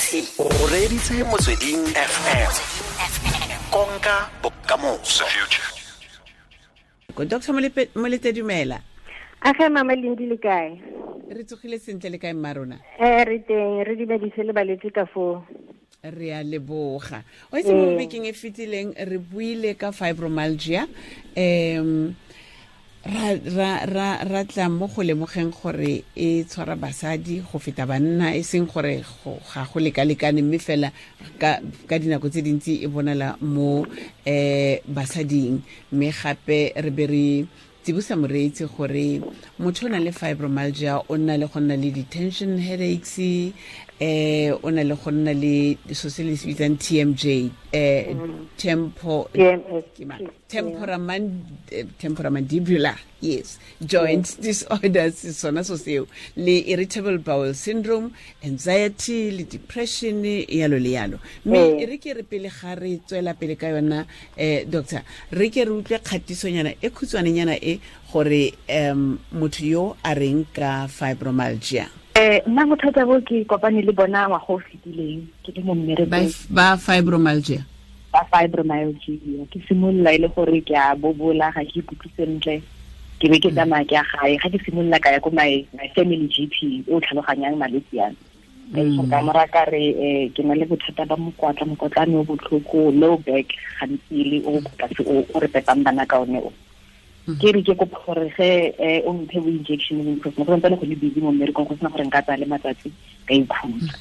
O reditse Motsweding FM. Konka bokamoso. Dr. Molete, dumela. A mama Lindi, le kae? Re tsogile sentle, le kae mma rona? Re teng, re dumedise le balwetse ka foo. Re a leboga. O itse, mo bekeng e fetileng re buile ka fibromyalgia, ra tla mo go lemogeng gore e tshwara basadi go feta banna, e seng gore ga go lekalekane, mme fela ka dinako tse dintsi e bonala mo basading. Mme gape re be re tsibosa moreetsi gore motho o na le fibromyalgia o nna le go nna le di-tension headaches, o na le go nna le so se le se bitsang TMJ, tempo temporomandibular, yes, joint disorders, sona so seo, le irritable bowel syndrome, anxiety le depression, yalo le yalo. Mme re ke re pele ga re tswela pele ka yona, doctor, re ke re utlwe kgatisonyana e khutshwanenyana e gore motho yo a reng ka fibromyalgia. Nna bothata bo ke kopane le bona ngwaga o fetileng ke le mo mmerekong. Ba fibromyalgia. Ba fibromyalgia. Ke simolola e le gore ke a bobola, ga ke ikutlwe sentle, ke be ke tsamaya ke ya gae. Ga ke simolola ka ya ko my family GP o tlhaloganyang malwetse yana, ka mora ka re ke na le bothata ba mokwatla, mokotlane o botlhoko, low back gantsi, le o ko tlase o re pepang bana ka one o. Ke re ke kopa gore ge o mphe bo injection because go santsane go le busy mo mmerekong, go sena gore nka tsaya le matsatsi ka ikhutsa.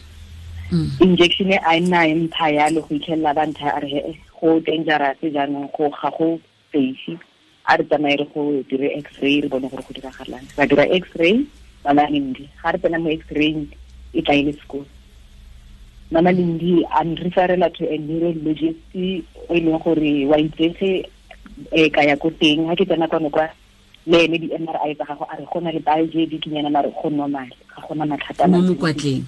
Injection e a nna e mpha yalo go itlhelela ba ntha a re he go dangerous jaanong, go ga go safe, a re tsamaye re go dire x-ray re bone gore go diragalang. Ra dira x-ray, mama Lindi. Ga re tsena mo x-ray e tla e le sekolo, mama Lindi a nreferela to a neurologist o e leng gore wa itsege. Ka ya ko teng. Ga ke tsena kwano kwa le ene, di-MRI tsa gago, a re go na le bulge dikinyana, mare go normal, ga gona mathata. Mo mokwatleng?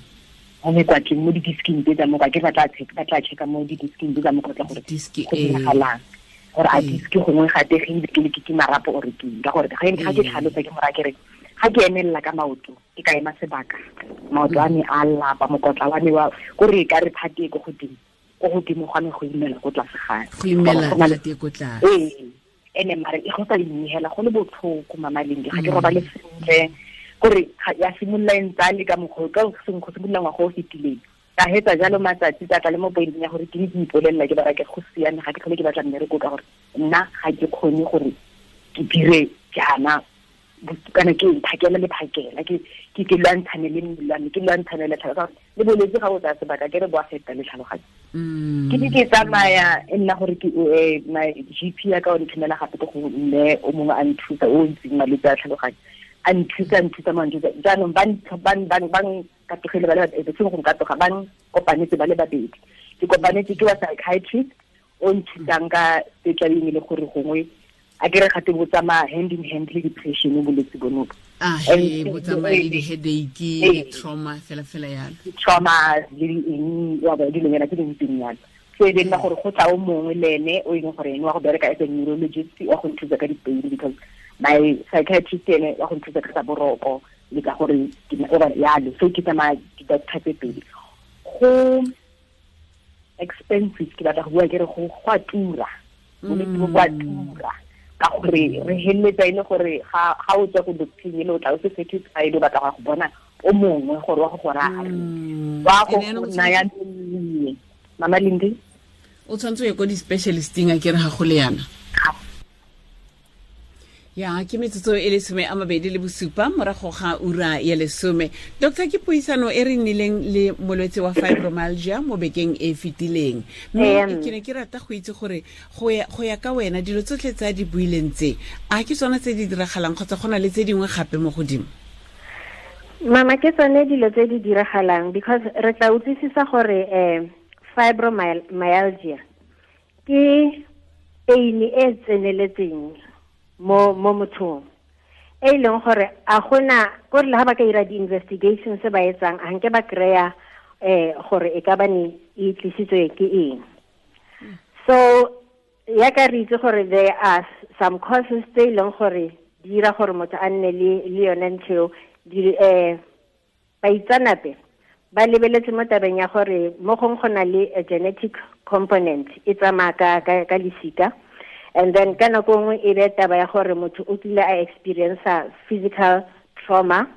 Mo mekwatleng, mo di-disking tse tsa mokwa ke ba tla checka mo di-disking tse tsa mokotla gore go diragalang, gore a disk gongwe ga tegile ke le ke marapo ore ke ka gore ga ke tlhalosa ke mora ke re ga ke emelela ka maoto, ke ka ema sebaka, maoto a me a lapa, mokotla wa me wa kore ka re phate ko godimo, ko godimo ga me go imela ko tlase ga go imela phate ko tlase. Ee, ene mare e go sa inehela go le botlhoko, mama Lindi, ga ke robale sentle, kore ya simolola e ntsa le ka mokgwa ka go simolola ngwaga o fetileng. Ka hetsa jalo matsatsi, tsa tla le mo pointeng ya gore ke ke ipolelela ke bara ke go siame, ga ke tlhole ke batla mmereko ka gore nna ga ke kgone gore ke dire jaana kana ke phakela le phakela ke lwantshane le mmele wa me, ke lwantshane le tlhaloganyo le bolwetse. Ga o tsaya sebaka ke re bo a feta le tlhaloganyo. Ke di ke tsamaya e nna gore ke my GP ya ka o nthomela gape ko go mme o mongwe a nthusa o ntseng malwetse a tlhaloganyo, a nthusa, nthusa mo nthusa. Jaanong ba nkatogile ba le babedi, seng go nkatoga, ba nkopanetse ba le babedi. Ke kopanetse ke wa psychiatrist o nthusang ka tse tlabeng e le gore gongwe a ke re gate bo tsamaya hand in hand le depression bolwetse bono. Ah, he bo tsamaya le di-headache le trauma fela fela yalo. Trauma le eng wa ba dilonyana tse dintseng yalo. So e be nna gore go tla o mongwe le ene o e leng gore ene wa go bereka as a neurologist wa go nthusa ka di-pain, because my psychiatrist ene wa go nthusa ka tsa boroko le ka gore yalo. So ke tsamaya di-doctor tse pedi. Go expensive, ke batla go bua ke re go a tura, bolwetse bo bo a tura, ka gore re heleletsa e le gore ga o tswa ko doctor ele o tla o se satisfied, o batla go bona o mongwe gore wa go go raya wa go naya melemo, mama Lindi. O tshwanetse o ye ko di-specialisting a ke re ga go le yana. Ya ke metsotso e le 27 morago ga ura ya 10. Doctor, ke puisano e re nnileng le molwetse wa fibromyalgia mo bekeng e fetileng, mme ke ne ke rata go itse gore go ya ka wena, dilo tsotlhe tse a di buileng tse, a ke tsona tse di diragalang kgotsa go na le tse dingwe gape mo godimo? Mama, ke tsone dilo tse di diragalang, because re tla utlwisisa gore fibromyalgia ke pain e tseneletseng mo mothong, e leng gore a gona gore le ha ba ka ira di-investigations tse ba etsang, a nke ba kry-a gore e ka ba ne e tlisitswe ke eng. So ya ka re itse gore there are some causes tse e leng gore di dira gore motho a nne le yone ntho eo. Baitsanape Ba lebeletse mo tabeng ya gore mo gong go na le a genetic component e tsamaya ka lesika, and then ka nako nngwe e be taba ya gore motho o kile a experience physical trauma,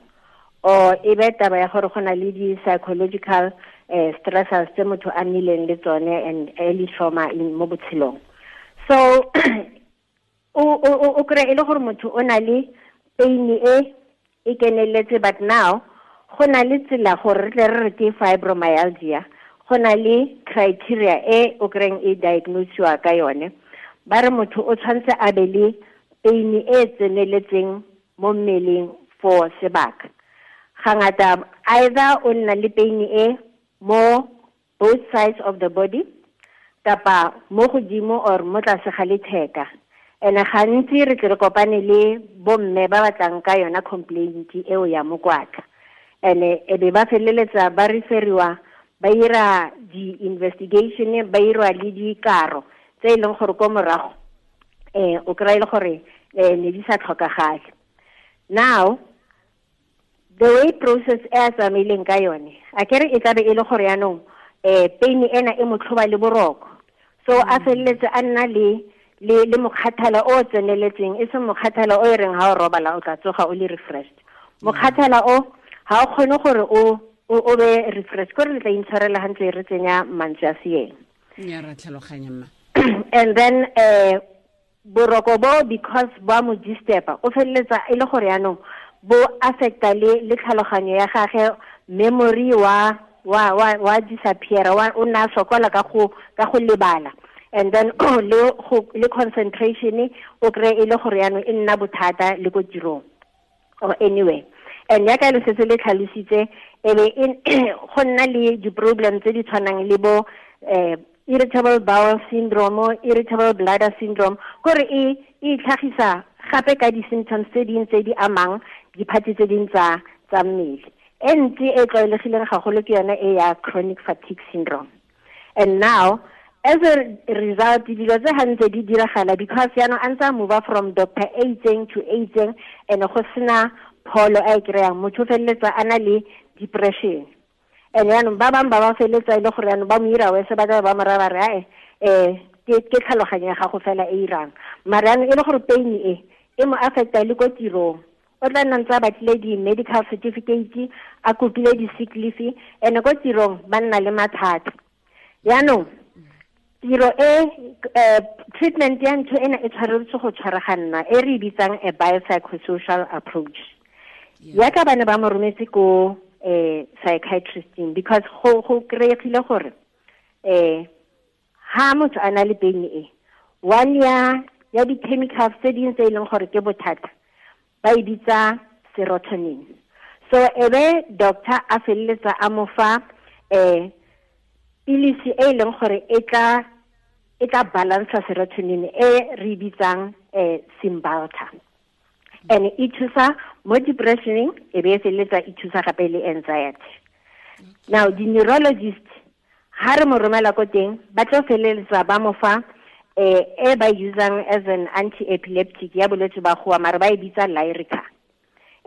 or e be taba ya gore go na le di-psychological stressors tse motho a nnileng le tsone and early trauma in mo botshelong. So o kry-e le gore motho o na le pain e keneletse, but now go na le tsela gore re tle re re ke fibromyalgia, go na le criteria e o kry-eng e diagnosiwa ka yone. Ba re motho o tshwanetse a be le pain e tseneletseng mo mmeleng for sebaka. Ga ngata either o nna le pain e mo both sides of the body kapa mo godimo or mo tlase ga letheka. And gantsi re tle re kopane le bomme ba batlang ka yona complaint eo ya mokwatla. And e be ba feleletsa ba referiwa, ba ira di-investigation, ba irwa le dikaro tse e leng gore ko morago o kry-e le gore ne di sa tlhokagale. Now the way process e a tsamaileng ka yone, a kere e tlabe e le gore yaanong pain ena e mo tlhoba le boroko, so a feleletse a nna le mokgathala o tseneletseng, e seng mokgathala o e reng ha o robala o tla tsoga o le refreshed. Mokgathala o ha o kgone gore o be refreshed, kore le tla intshwarela hantle re tsenya mantswe a seeng. Ya ra tlhaloganya mma. And then boroko bo, because ba mo disturba, o feleletsa e le gore yaanong bo affecta le tlhaloganyo ya gagwe, memory wa disappear, wa o nna sokola ka go lebala, and then le concentration o kry e le gore yaanong e nna bothata le ko tirong or anyway. And yaka le setse le tlhalositse, e be go nna le di-problem tse di tshwanang le bo irritable bowel syndrome, irritable bladder syndrome, kore e itlhagisa gape ka di-symptoms tse ding tse di amang diphatsi tse ding tsa mmele. E ntsi e tlwaelegileng gagolo ke yone e ya chronic fatigue syndrome. And now as a result, dilo tse gantse di diragala because yaanong a ntse a move from doctor a itseng to a itseng, and go sena pholo a e kry-ang, motho o feleletsa a na le depression. And yaanong ba bangwe ba feleletsa e le gore yaanong ba mo ira wese, ba tlabe ba mo raya ba re ae ke tlhaloganyo ya gago fela e irang, mare yaanong e le gore pain e mo affecta le ko tirong. O tla nna ntse a batlile di-medical certificate, a kopile di-sick leave, and ko tirong ba nna le mathata. Yaanong tiro e treatment ya ntho ena e tshwaretswe go tshwaraganna, e re bitsang a biopsychosocial approach. Yaka ba ne ba mo rometse ko psychiatristing, because go kry-egile gore ha motho a na le pain e one ya di-chemicals tse ding tse e leng gore ke bothata, ba e bitsa serotonin. So ebe doctor a feleletsa a mo fa pilisi e leng gore e tla balansa serotonin e re bitsang Cymbalta. And e thusa mo depressioning, e be e feleletsa e thusa gape le anxiety. Now the neurologist ha re mo romela ko teng, ba tlo feleletsa ba mo fa e ba usang as an anti-epileptic ya bolwetse ba goa, mare ba e bitsa Lyrica,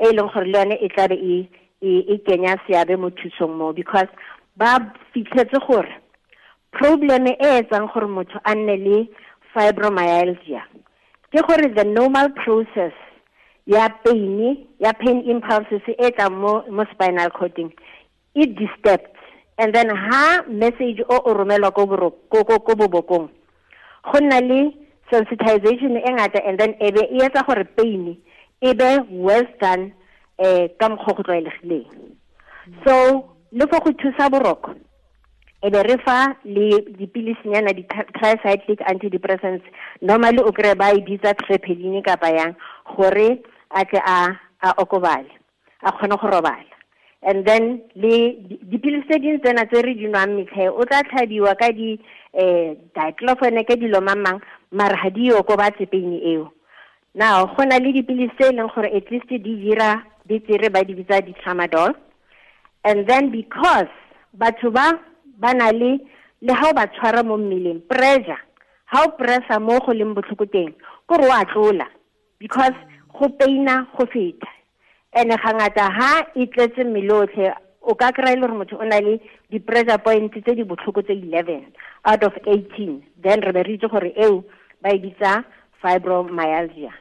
e leng gore le yone e tlabe e kenya seabe mo thusong mo, because ba fitlhetse gore problem e etsang gore motho a nne le fibromyalgia ke gore the normal process ya pain, ya pain impulses e tlang mo spinal cording e disturbed, and then ha message o romelwa ko bobokong, go nna le sensitization e ngata, and then e be e etsa gore pain e be worse than ka mokgwa go tlwaelegileng. So le fo go thusa boroko, e be re fa le dipilisinyana di-tricyclic antidepressants, normally o kry ba e bitsa trepeline kapa yang, gore a tle a okobale, a kgone go robala. And then le dipilisi tse dingwe tsena tse re di nwang metlhe, o tla tlhabiwa ka di diclofenac ka dilo mang, mara ga di okobatse pain eo. Now go na le dipilisi tse e leng gore at least di dira betere, ba di bitsa di-tramadol. And then because batho ba na le ha o ba tshwara mo mmeleng, pressure, ha o pressa mo go leng botlhoko teng, kore wa tlola, because go paina go feta. And ga ngata ha e tletse mmele otlhe, O ka kry-a e le gore motho o na le di-pressure points tse di botlhoko tse 11 out of 18, then re be re itse gore eo ba e bitsa fibromyalgia.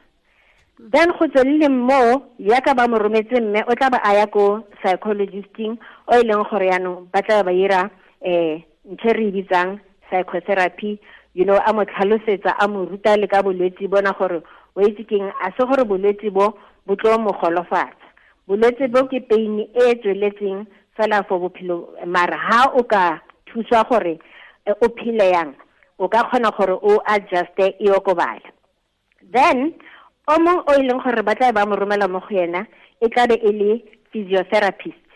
Then go tswelele mo yaka ba mo rometse mme o tla ba a ya ko psychologisting o e leng gore yaanong ba tla ba ira ntho e re e bitsang psychotherapy, you know, a mo tlhalosetsa, a mo ruta le ka bolwetse bona gore o itse keng, a se gore bolwetse bo bo tlo mo golofatsa. Bolwetse bo ke pain e tsweletseng fela for bophelo, mara ha o ka thuswa gore o phele yang, o ka kgona gore o adjuste e okobale. Then o mong o e leng gore ba tla ba mo romela mo go yena e tla be e le physiotherapist,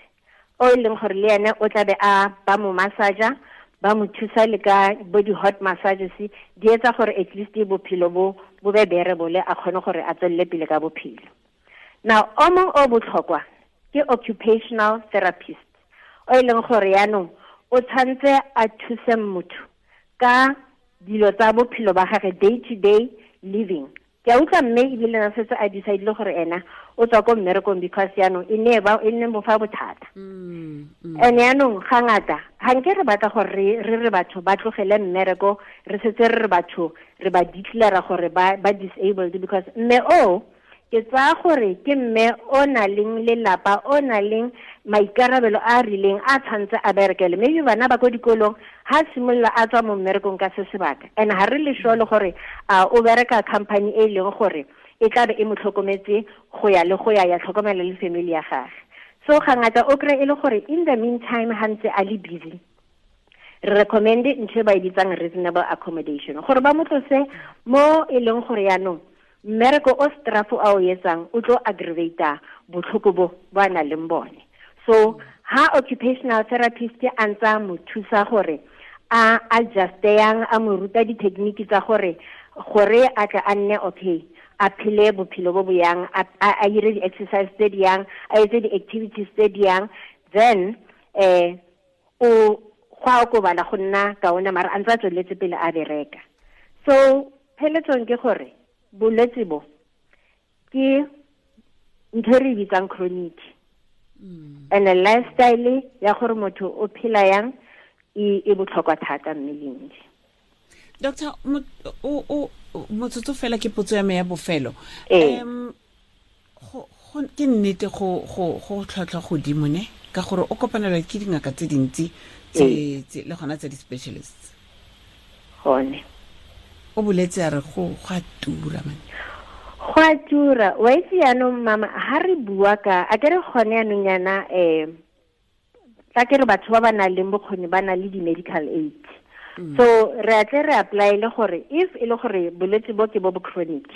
o e leng gore le ene o tla be a ba mo massager, ba mo thusa le ka bo di-hot massages, di etsa gore at least bophelo bo bo be bearable, a kgone gore a tswelele pele ka bophelo. Now o mong o botlhokwa ke occupational therapist, o e leng gore yaanong o tshwanetse a thuse motho ka dilo tsa bophelo ba gagwe, day to day living. Ke a utlwa mme ebile na setse a decide-ile gore ena o tswa ko mmerekong because yaanong e ne ba e nne mo fa bothata. And yaanong ga ngata ga nke re batla gore re re batho ba tlogele mmereko, re setse re re batho re ba declare gore ba disabled, because mme o ke tsaya gore ke mme o na leng lelapa, o na leng maikarabelo a a rileng a tshwanetse a berekele. Maybe bana ba ko dikolong ha simolola a tswa mo mmerekong ka se sebaka, and ha re le sure le gore a o bereka company e leng gore e tla be e mo tlhokometse go ya le go ya ya tlhokomela le family ya gagwe. So ga ngata o kry e le gore in the meantime ha ntse a le busy, re recommend ntho e ba e bitsang reasonable accommodation, gore ba mo tlose mo e leng gore yaanong mmereko o strafo a o etsang o tlo aggravata botlhoko bo ba nang le bone. So ha occupational therapist a ntsa mo thusa gore a adjuste yang, a mo ruta di-technique tsa gore a tla a nne okay, a phele bophelo bo bo yang, a dire di-exercise tse di yang, a etse di-activities tse di yang, then o go a okobala go nna kaone, mara a ntse a tsweletse pele a bereka. So pheletsong ke gore bolwetse bo ke ntho e re bitsang chronic, and a lifestyle ya gore motho o phela yang e botlhokwa thata mmeleng. Doctor, o motsotso fela ke potso ya me ya bofelo. Ke nnete go tlhwatlhwa godimo ne, ka gore o kopanelwa ke dingaka tse dintsi tse le gona tse di-specialists. Gone o boletse a re go a tura man. Go a tura. Wa itse yaanong mama, ha re bua ka a ke re gone yaanong yana tla ke re batho ba ba nang le bokgoni ba na le di-medical aid. So re a tle re apply-ele gore if e le gore bolwetse bo ke bo bo chronic,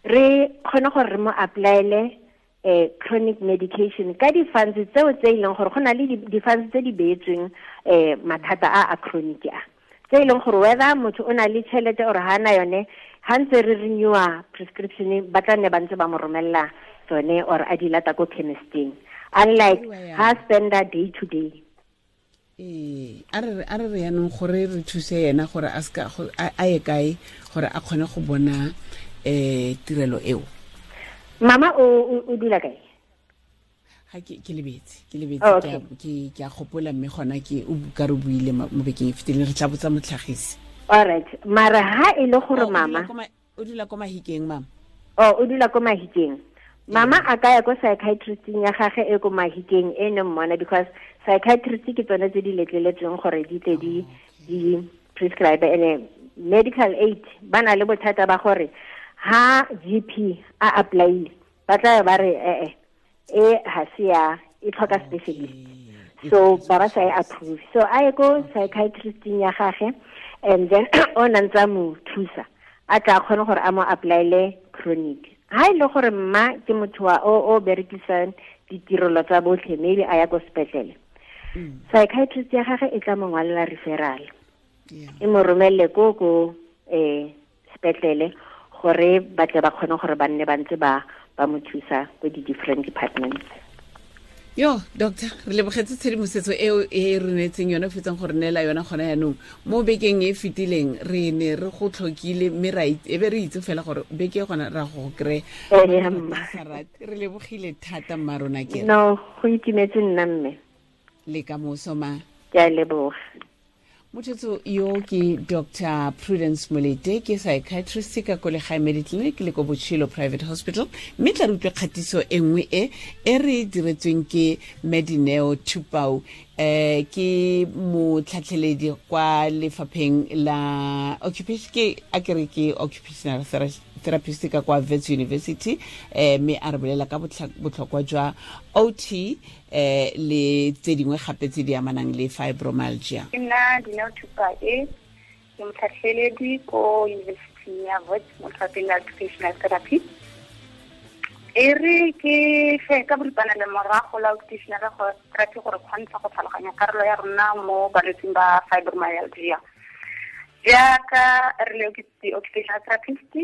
re kgone gore re mo apply-ele chronic medication ka di-funds tseo tse e leng gore go na le di-funds tse di beetsweng mathata a chronic a, tse e leng gore whether motho o na le tšhelete or ha na yone, ha ntse re renewa prescription ba tla nne ba ntse ba mo romella tsone or a di lata ko chemisteng, unlike ha spenda day to day. A re re yanong gore re thuse yena gore a ska a ye kae gore a kgone go bona tirelo eo. Mama o dula kae? Ha ke lebetse ke a gopola mme gona ke o ka re buile mo bekeng e fetileng, re tla botsa motlhagisi. All right, mara ha e le gore mama o dula ko Mahikeng. Mama o dula ko Mahikeng. Mama a ka ya ko psychiatristing ya gagwe e ko Mahikeng e ne mmona, because psychiatrist ke tsone tse di letleletsweng gore di tle di prescribe. Ene medical aid ba na le bothata ba gore ha GP a apply ba tla ba re e ha se ya e tlhoka specialist, so ba ba sa e approve. So a ye ko psychiatristing ya gagwe, and then o na ntsa mo thusa a tla kgone gore a mo apply-ele chronic. Ha e le gore mma ke motho wa o berekisang ditirelo tsa botlhe, maybe a ya ko sepetlele, psychiatrist ya gagwe e tla mo ngwalela referral, e mo romelle ko sepetlele gore ba tle ba kgone gore ba nne ba ntse ba mo thusa ko di-different departments. Yo doctor, re lebogetse tshedimosetso eo e re neetseng yone, fetsang gore neela yona gona yanong. Mo bekeng e fetileng re ne re go tlhokile, mme ra e be re itse fela gore beke gona ra go kry. Re lebogile thata mma rona ke. No, go itumetse nna mme. Le ka moso ma. Ke a leboga. Mothetso yo ke Dr. Prudence Molete, ke psychiatrist ka ko Legae Mediclinic le ko Botshelo Private Hospital, mme tla re utlwe kgatiso e nngwe e re diretsweng ke Medineo Thupau, ke motlhatlheledi kwa lefapheng la occupation, ke a kere ke occupational therapist ka kwa Wits University, mme a re bolela ka botlhokwa jwa OT le tse dingwe gape tse di amanang le fibromyalgia. Ke nna Dineo Thupau, ke motlhatlheledi ko University ya Wits mo lefapheng la occupational therapy. E re ke fe ka boripana le morago la occupational therapy gore kgontsha go tlhaloganya karolo ya rona mo balwetsing ba fibromyalgia. Jaaka re le occupational therapist,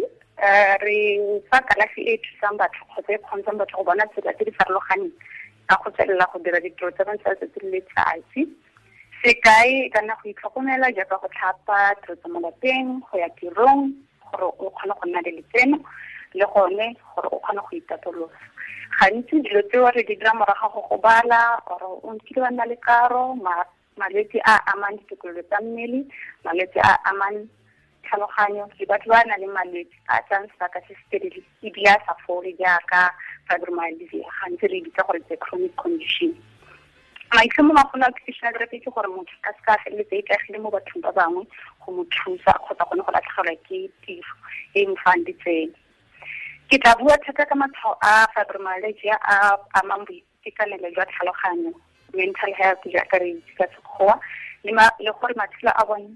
re fa kalafi e thusang batho kgotsa e kgontshang batho go bona tsela tse di farologaneng ka go tswelela go dira ditiro tsa bone tsa letsatsi le letsatsi. Sekai ka nna go itlhokomela jaaka go tlhapa, tiro tsa mo lapeng, go ya tirong, gore o kgone go nna le letseno, le gone gore o kgone go itapolosa. Gantsi dilo tseo re di dira morago go gobala, or o nkile wa nna le karo, malwetse a amang ditokololo tsa mmele, malwetse a amang tlhaloganyo, le batho ba nang le malwetse a tsayang sebaka se se telele ebile a sa fole jaaka fibromyalgia, gantsi re bitsa gore ke chronic condition. Maitlhomo magolo a occupational therapy ke gore motho a seka a feleletsa a ikaegile mo bathong ba bangwe go mo thusa kgotsa gone go latlhegelwa ke tiro e mo fang ditsela. Ke tla bua thata ka matshwao a fibromyalgia a amang boitekanelo jwa tlhaloganyo, mental health jaaka re itse ka Sekgowa, le gore matshelo a bone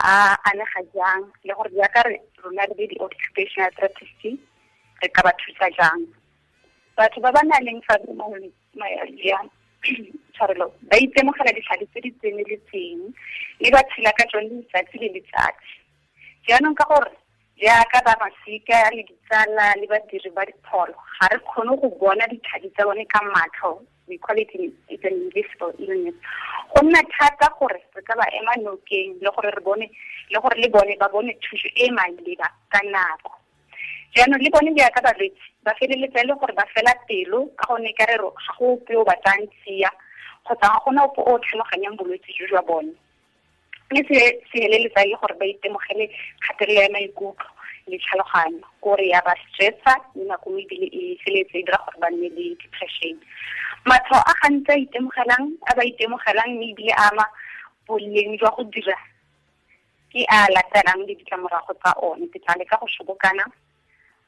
a anega jang, le gore jaaka re rona re le di-occupational therapist re ka ba thusa jang. Batho ba ba nang le fibromyalgia tshwarelo ba itemogela ditlhare tse di tseneletseng mme ba tshela ka tsone letsatsi le letsatsi. Jaanong ka gore jaaka ba masika le ditsala le badiri ba dipholo ga re kgone go bona ditlhare tsa bone ka matlho, we call it it's an invisible illness. Go nna thata gore re ka ba ema nokeng le gore re bone le gore le bone ba bone thuso e maleba ka nako. Jaanong le bone jaaka balwetse ba feleletsa e le gore ba fela pelo ka gonne ka re ga go ope o batlang tsia kgotsa ga gona ope o tlhaloganyang bolwetse jo jwa bone. Mme se feleletsa e le gore ba itemogele kgatelelo ya maikutlo le tlhaloganyo, kore ya ba stressa mme nako nngwe ebile e feleletse e dira gore ba nne le depression. Matshwao a gantsi a ba itemogelang mme ebile a ama boleng jwa go dira ke a latelang le ditlamorago tsa one. Ke tla leka go sobokana,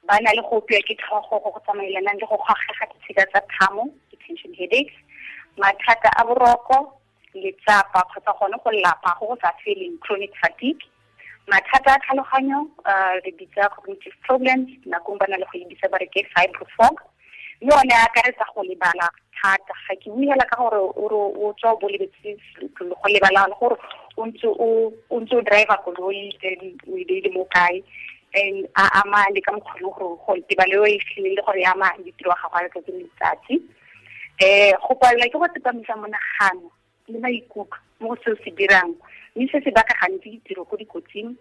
ba na le go opiwa ke tlhogo go go tsamaelanang le go gagega ditshika tsa thamo, tension headaches, mathata a boroko, letsapa kgotsa gone go lapa go go sa feleng, chronic fatigue, mathata a tlhaloganyo, re bitsa cognitive problems, nakong ba na le go e bitsa ba re ke fibrofog, mme one a akaretsa go lebala thata. Ga ke bue hela ka gore o tswa o bo lebetse go lebala le gore o ntse o driver koloi then o e beile mo kae, and a ama le ka mokgwa le gore go tebalo e fitlhelele gore e ama ditiro ga gago letsatsi le letsatsi. Go palelwa ke go tsepamisa monagano le maikutlo mo go seo se dirang, mme se se baka gantsi ditiro ko dikotsing,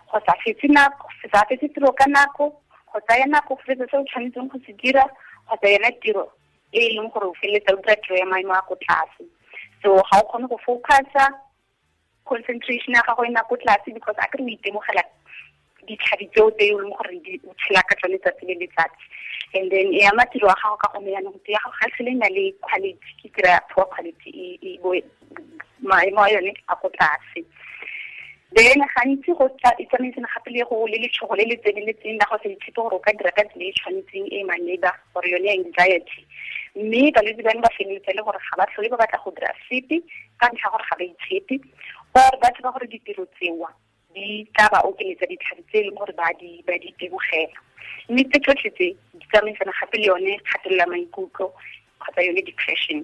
go sa fetse tiro ka nako, go tsaya nako go fetsa se o tshwanetseng go se dira, kgotsa yona tiro e e leng gore o feleletsa o dira tiro ya maemo a ko tlase. So ga o kgone go focusa, concentration ya gago e nna ko tlase because a kere o itemogela ditlhabi tseo tse e leng gore o tshela ka tsone letsatsi le letsatsi. And then e ama tiro ya gago ka gonne jaanong tiro ya gago ga tlhole e na le quality, ke tiro ya poor quality, e bo maemo a yone a ko tlase. Then gantsi go e tsamaisana gape le go le letshogo le le tseneletseng la go sa itshepe gore o ka dira ka tsela e tshwanetseng e maleba, gore yone anxiety. Mme balwetse bano ba feleletsa le gore ga ba tlhole ba batla go dira sepe ka ntlha gore ga ba itshepe, or ba tseba gore ditiro tsewa di tla ba okeletsa ditlhare tse e leng gore ba di itemogela. Mme tse tsotlhe tse di tsamaisana gape le yone kgatelelo ya maikutlo kgotsa yone depression.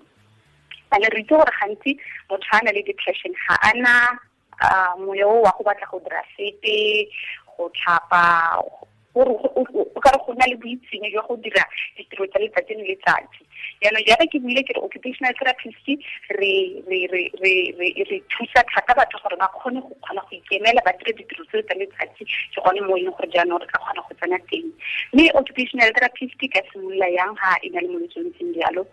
Ane re itse gore gantsi motho a na le depression ga ana moya o wa go batla go dira sepe, go tlhapa, Gore o ka re go na le boitsenyo jwa go dira ditiro tsa letsatsi le letsatsi. Jaanong jaaka ke buile ke re occupational therapist re thusa thata batho gore ba kgone go kgona go ikemela ba dire ditiro tseo tsa letsatsi, ke gone mo e leng gore jaanong re ka kgona go tsena teng. Mme occupational therapist ka simolola yang ha e na le molwetse o ntseng jalo?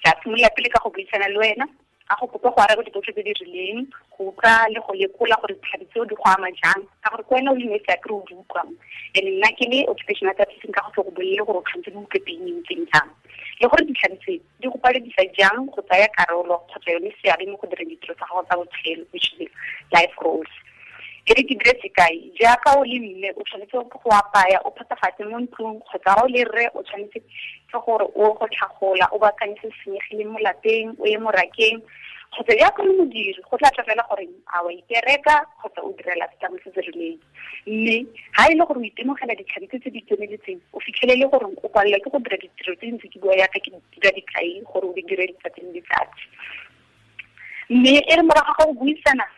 Ka simolola pele ka go buisana le wena, a go kopa go araba dipotso tse di rileng, go utlwa le go lekola gore ditlhabi tseo di go ama jang, ka gore ke wena o le nosi a kere o di utlwang. And nna ke le occupational therapist nka go tle go bolele gore o tshwanetse di utlwe pain e ntseng jang, le gore ditlhabi tse di go paledisa jang go tsaya karolo kgotsa yone seabe mo go direng ditiro tsa gago tsa botshelo, which is life roles. E re ke dire sekai, jaaka o le mme o tshwanetse go apaya, o phepafatse mo ntlong, kgotsa o le rre o tshwanetse ke gore o go tlhagola, o baakanye se senyegileng mo lapeng, o ye morakeng, kgotsa jaaka le modiri go tla tla fela gore a wa ipereka kgotsa o direla setlamo se se rileng. Mme ha e le gore o itemogela ditlhabi tse di tseneletseng, o fitlhelele gore o palelwa ke go dira ditiro tse dintsi, ke bua yaka ke dira dikai gore o di dire letsatsi le letsatsi. Mme e re morago ga go buisana,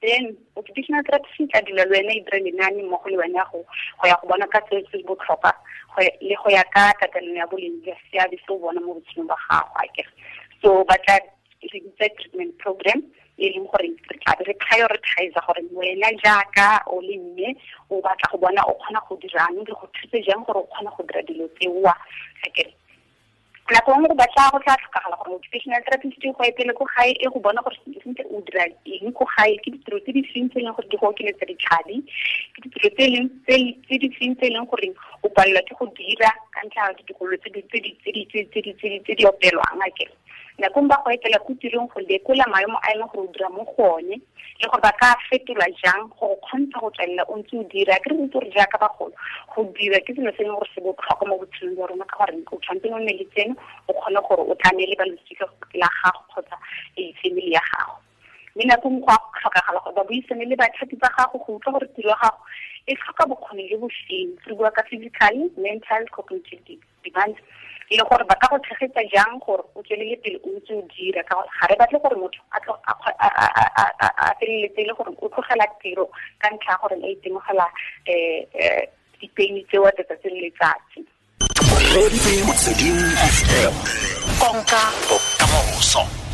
then occupational therapist e tla dula le wena e dire lenaane mmogo le wena go ya go bona ka se se botlhokwa le go ya ka tatelano ya boleng jwa seabe se o bona mo botshelong ba gago akere. So ba tla re bitsa treatment program, e leng gore re tla be re prioritize gore wena jaaka o le mme o batla go bona o kgona go dirang, re go thuse jang gore o kgone go dira dilo tseoa akere. Nako nngwe go batla go tla tlhokagala gore occupational therapist go etele ko gae e go bona gore sentle o dira eng ko gae, ke ditiro tse di feng tse e leng gore di go okeletsa ditlhabi, ke ditiro tse di feng tse e leng gore o palelwa ke go dira ka ntlha ya ditokololo tse di opelwang akere. Nako nngwe ba go etela ko tirong go lekola maemo a e leng gore o dira mo go one, le gore ba ka fetolwa jang go kgontsha go tswelela o ntse o dira. Ke re itse gore jaaka bagolo go dira ke selo se e leng gore se botlhokwa mo botshelong jwa rona, ka gore o tshwanetse o nne le tseno o kgone gore o tlamele ba losika la gago kgotsa family ya gago. Mme nako nngwe go a tlhokagala gore ba buisane le bathapi ba gago go utlwa gore tiro ya gago e tlhoka bokgoni jo bo feng. Re bua ka physical, mental, cognitive demands, le gore ba ka go tshegetsa jang gore o tswelele pele o ntse o dira, ka gore ga re batle gore motho a feleletse e le gore o tlogela tiro ka ntlha ya gore a itemogela dipeini tseo tsatsi le letsatsi. Konka bokamoso.